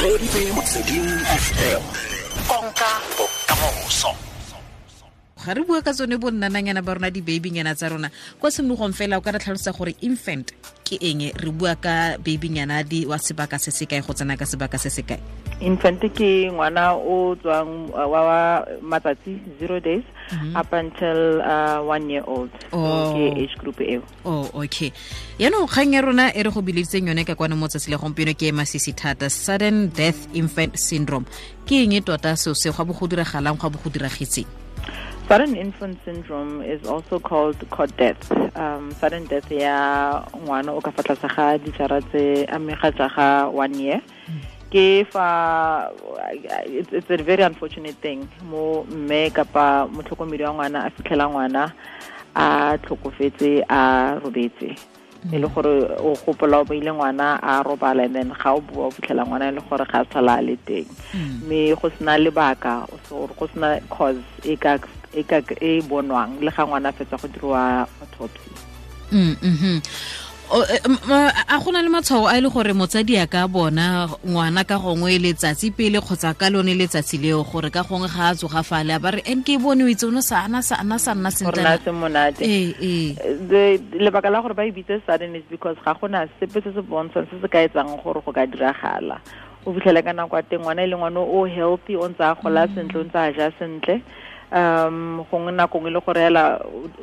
Reditse Motsweding FM. Konka bokamoso. Ga re bua ka tsone bo nnananyana ba rona, di-babynyana tsa rona kwa tshimologong fela, o ka re tlhalosa gore infant ke eng? Re bua ka babynyana di wa sebaka se se kae go tsena ka sebaka se se kae? Infant ke ngwana o tswang wa matsatsi, 0 days up until 1 year old. Oh. So ke age group eo. Oh, okay. Yaanong kgang ya rona e re go bileditseng yone ka kwane mo tsatsi la gompieno ke e masisi thata, sudden death infant syndrome. Ke eng e tota seo se gwa bo go diragalang, gwa bo go diragetseng? Sudden infant syndrome is also called cot death. Sudden death ya ngwana o ka fa tlase ga dijara tse a mme ga tsa ga 1 year. Ke fa it's a very unfortunate thing mo mme kapa motlhokomedi wa ngwana a fitlhela ngwana a tlhokofetse a robetse, e le gore o gopola o beile ngwana a robala, and then ga o bua o fitlhela ngwana e le gore ga a tlhola a le teng, mme go sena lebaka or go sena cause e ka e bonwang le ga ngwana a fetsa go diriwa autopsy. A go na le matshwao a e le gore motsadi a ka bona ngwana ka gongwe letsatsi pele kgotsa ka lone letsatsi leo, gore ka gongwe ga a tsoga fale a ba re en ke bone o itse o ne sa ana sa ana sa nna gore na sentle? Se monate. Ee. Lebaka la gore ba e bitse sudden is because ga gona sepe se se bontshang se se ka etsang gore go ka diragala. O fitlhele ka nako ya teng ngwana e le ngwana o healthy, o ntse a gola sentle, o ntse a ja sentle, gongwe nako nngwe e le gore hela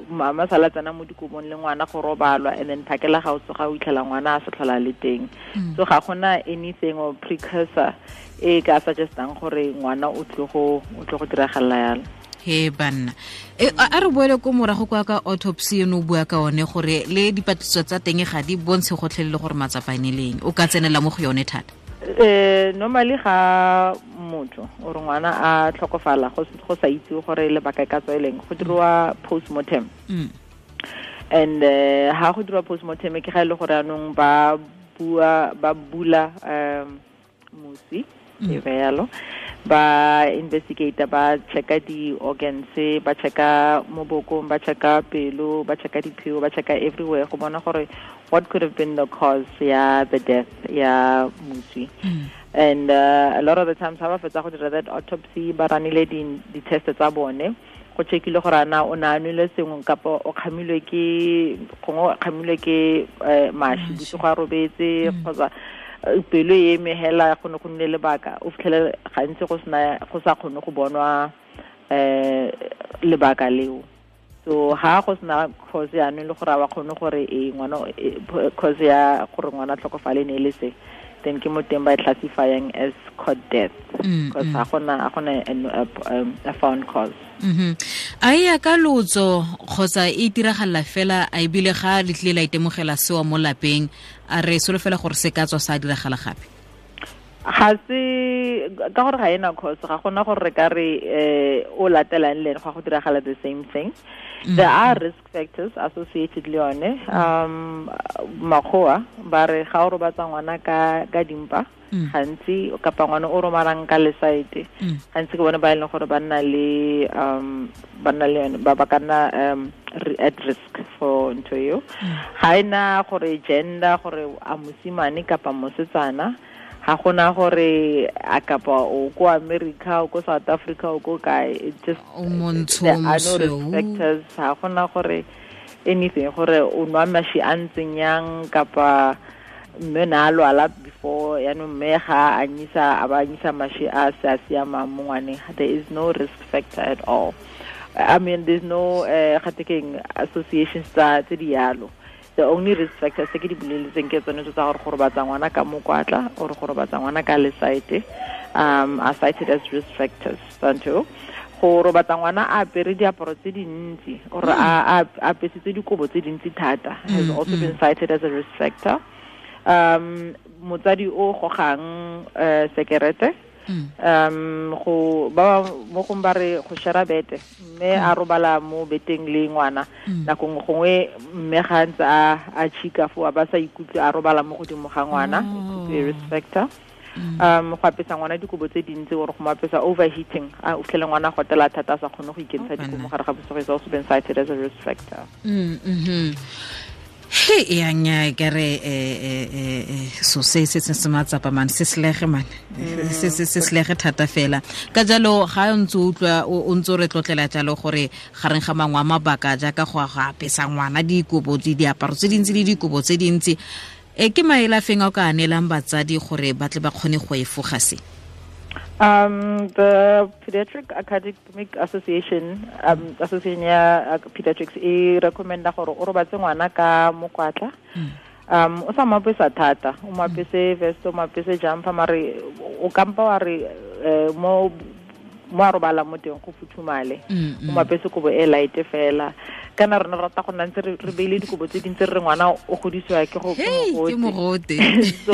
mama sala tsena mo dikobong le ngwana go robalwa, and then phakela ga o tsoga o itlhela ngwana a se tlhola le teng. So ga gona anything or precursor e ka suggestang gore ngwana o tlile go diragalela yalo. He banna e, a re boele ko morago kwa ka autopsy eno o bua ka one, gore le dipatlisiso tsa teng ga di bontshe gotlhelele gore matsapa ene leng o ka tsenela mo go yone thata. Normally ga motho or ngwana a tlhokofala go sa itse gore lebaka e ka tswa e leng, go diriwa postmortem. And ha go diriwa postmortem ke ga e le gore anong ba bua ba bula mosi e be yalo, ba investigate, ba checka di-organs, ba checka mo bokong, ba checka pelo, ba checka diphio, ba checka everywhere go bona gore what could have been the cause ya the death ya moswi. And a lot of the times ha ba fetsa go dira that autopsy, ba ranile di-test tsa bone, go checkile gore ana o ne a nwele sengwe kapa o kgamilwe ke, gongwe o kgamilwe ke mashi bosigo a robetse, kgotsa pelo e eme hela, go ne go nne lebaka. O fitlhele gantsi go sena, go sa kgone go bonwa lebaka leo. So ha go sena cause yaanong le gore a ba kgone gore e ngwana cause ya gore ngwana a tlhokofale ne e le se, then ke mo teng ba e classifying as cot death because ga gona a found cause. A e ya ka lotso kgotsa e itiragalela fela, a ebile ga le tlile la itemogela sewa mo lapeng, a re solofela gore se ka tswa sa diragala gape? Ga se ka gore ga ena cause, ga gona gore re ka re o latelang le ene go diragala the same thing. There are risk factors associated le yone. Makgowa ba re ga o robatsa ngwana ka dimpa gantsi, kapa ngwana o romalang ka lesaete gantsi, ke bone ba e leng gore ba nna le yone, ba ka nna at risk for ntho eo. Ga ena gore gender, gore a mosimane kapa mosetsana, ga gona gore a kapa o ko America, o ko South Africa, o ko kae. It just O montsho, there are no risk mosweu. factors. Ga gona gore anything, gore o nwa mashi a ntseng yang, kapa mme na a lwala before, yaanong mme ga a anyisa a ba anyisa mashi a se a siamang mo ngwaneng. There is no risk factor at all. I mean, there's no gate keng associations tsa tse di yalo. The only risk factors tse ke di boleletseng ke tsone tse tsa gore go robatsa ngwana ka mokwatla or go robatsa ngwana ka lesaete are cited as risk factors tsa ntho. Go robatsa ngwana a apere diaparo tse dintsi or a apesitse dikobo tse dintsi thata has also been cited as a risk factor. Motsadi o gogang sekerete, go ba mo gong ba re go share bete, mme a robala mo beteng le ngwana, nako nngwe gongwe mme ga ntse a chika fo a ba sa ikutlwe a robala mo godimo ga ngwana, it could be a risk factor. Go apesa ngwana dikobo tse dintsi or go mo apesa, overheating, a o fitlhele ngwana a gotela thata a sa kgone go ikentsha dikobo mo gare ga bosigo is also been cited as a risk factor. He ya nya ke re so se se se matsapa man se slege man se se se slege thata fela ka jalo ga o ntse utlwa o ntse re tlotlela jalo gore gareng ga mangwe a mabaka jaaka go apesa ngwana dikobo di diaparo tse dintsi le dikobo tse dintsi e ke maela feng a o ka anelang batsadi gore ba tle ba kgone go efoga se? The Pediatric Academic Association, Association ya Pediatrics e recommenda gore o robatse ngwana ka mokwatla. O sa mo apesa thata, o mo apese vest, o mo apese jumper, mare o kampa wa re mo a robala mo teng go futhumale. O mo apese kobo e light fela. Kana rona rata go nna ntse re beile dikobo tse dintsi re ngwana o godisiwa ke go mogote. So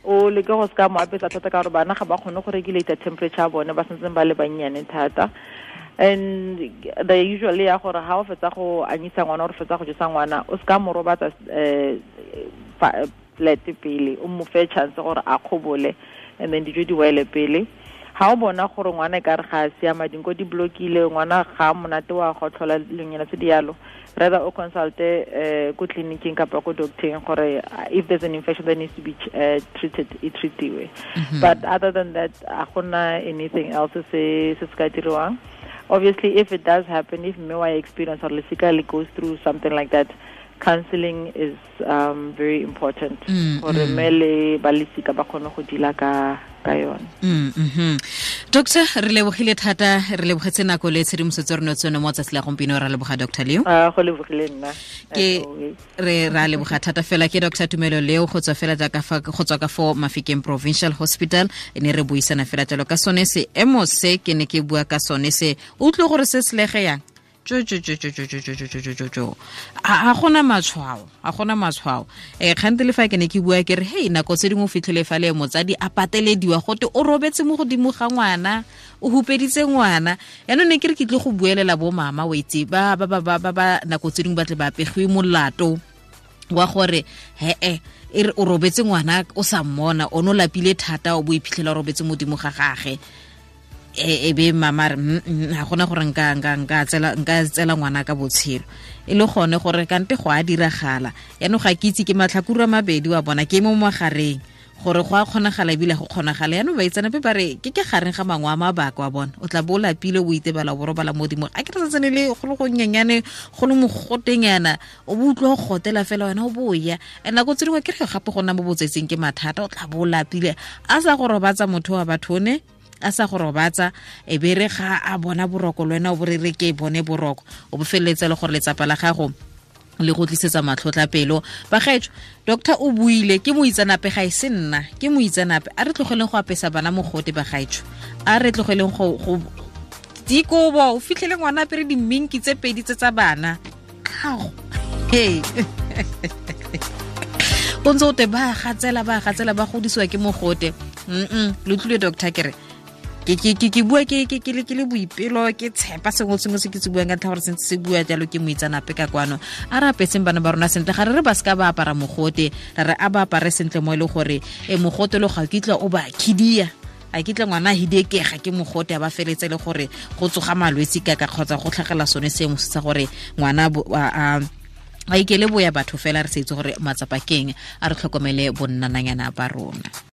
o leke go ska mo apesa thata ka gore bana ga ba kgone go regulate temperature ya bone, ba santseng ba le bannyane thata. And they usually ya gore ha o fetsa go anyisa ngwana or fetsa go jesa ngwana o ska mo robatsa flat pele, o mo fe chance gore a kgobole and then dijo di wele pele. Ha o bona gore ngwana e ka re ga a siama, dinko di blokile, ngwana ga monate wa go tlhola lenyana tse di yalo, rather o consulte ko tleliniking kapa ko doctoreng gore if there's an infection that needs to be treated, e treatiwe. But other than that, a gona anything else se se ka diriwang. Obviously, if it does happen, if mme wa experience or lesika le goes through something like that, counseling is very important gore mme le ba lesika ba kgone go dila ka yone. Doctor, re lebogile thata, re lebogetse nako le tshedimosetso re netswe mo tsatsi la gompieno, ra leboga Dr. Leo. Go lebogile nna. Ke re ra leboga thata fela ke Dr. Tumelo Leo go tswa fela jaaka fa go tswa ka fo Mafikeng Provincial Hospital, ne re buisana fela jalo ka sone se emo se ke ne ke bua ka sone se o utlwe gore se slege yang. Jo jo jo jo jo jo jo jo jo jo jo. A gona matshwao, a gona matshwao. Kgante le fa ke ne ke bua ke re hey nako tse dingwe o fitlhele fa le motsadi a patelediwa gote o robetse mo godimo ga ngwana, o hupeditse ngwana. Yaanong ne ke re ke tle go buelela bo mama o itse ba ba ba ba ba nako tse dingwe ba tle ba pegiwe molato wa gore he e re o robetse ngwana o sa mmona, o no lapile thata o bo iphitlhela o robetse modimo ga gage. E be mama re ga gona gore nka tsela ngwana ka botshelo e le gone gore kante go a diragala. Yaanong ga ke itse ke matlhakuro a mabedi wa bona ke mo magareng gore go a kgonagala ebile go kgonagala. Yaanong baitseanape ba re ke gareng ga mangwe a mabaka wa bona, o tla bo o lapile o itebala o bo robala modimo a ke re santsane le go le gonyenyane go le mogotenyana o bo utlwa go gotela fela wena o boya. And nako tse dingwe ke re gape go nna mo botsetseng ke mathata, o tla bo o lapile a sa go robatsa motho wa batho ne a sa go robatsa e be re ga a bona boroko le wena o bo re re ke bone boroko o bo feleletse le gore letsapa la gago le go tlisetsa matlhotla pelo. Bagaetsho, doctor o buile ke moitseanape ga e se nna, ke moitseanape. A re tlogeleng go apesa bana mogote bagaetsho, a re tlogeleng go dikobo o fitlhele ngwana apere diminki tse pedi tse tsa bana. Kao hey o ntse o te ba gatsela ba godisiwa ke mogote. Le utlwile doctor ke re ke bua ke le boipelo ke tshepa sengwe sengwe se ke se buang ka ntlha gore sentse se bua jalo ke moitseanape ka kwano. A re apeseng bana ba rona sentle, ga re re ba seka ba apara mogote, ra re a ba apare sentle mo e le gore mogote lo ga kitla o ba khidia, a kitla ngwana hidekega ke mogote a ba feletse le gore go tsoga malwetse ka kgotsa go tlhagela sone seemo sa gore ngwana a ikele boya batho fela re se itse gore matsapa keng. A re tlhokomele bonnananyana ba rona.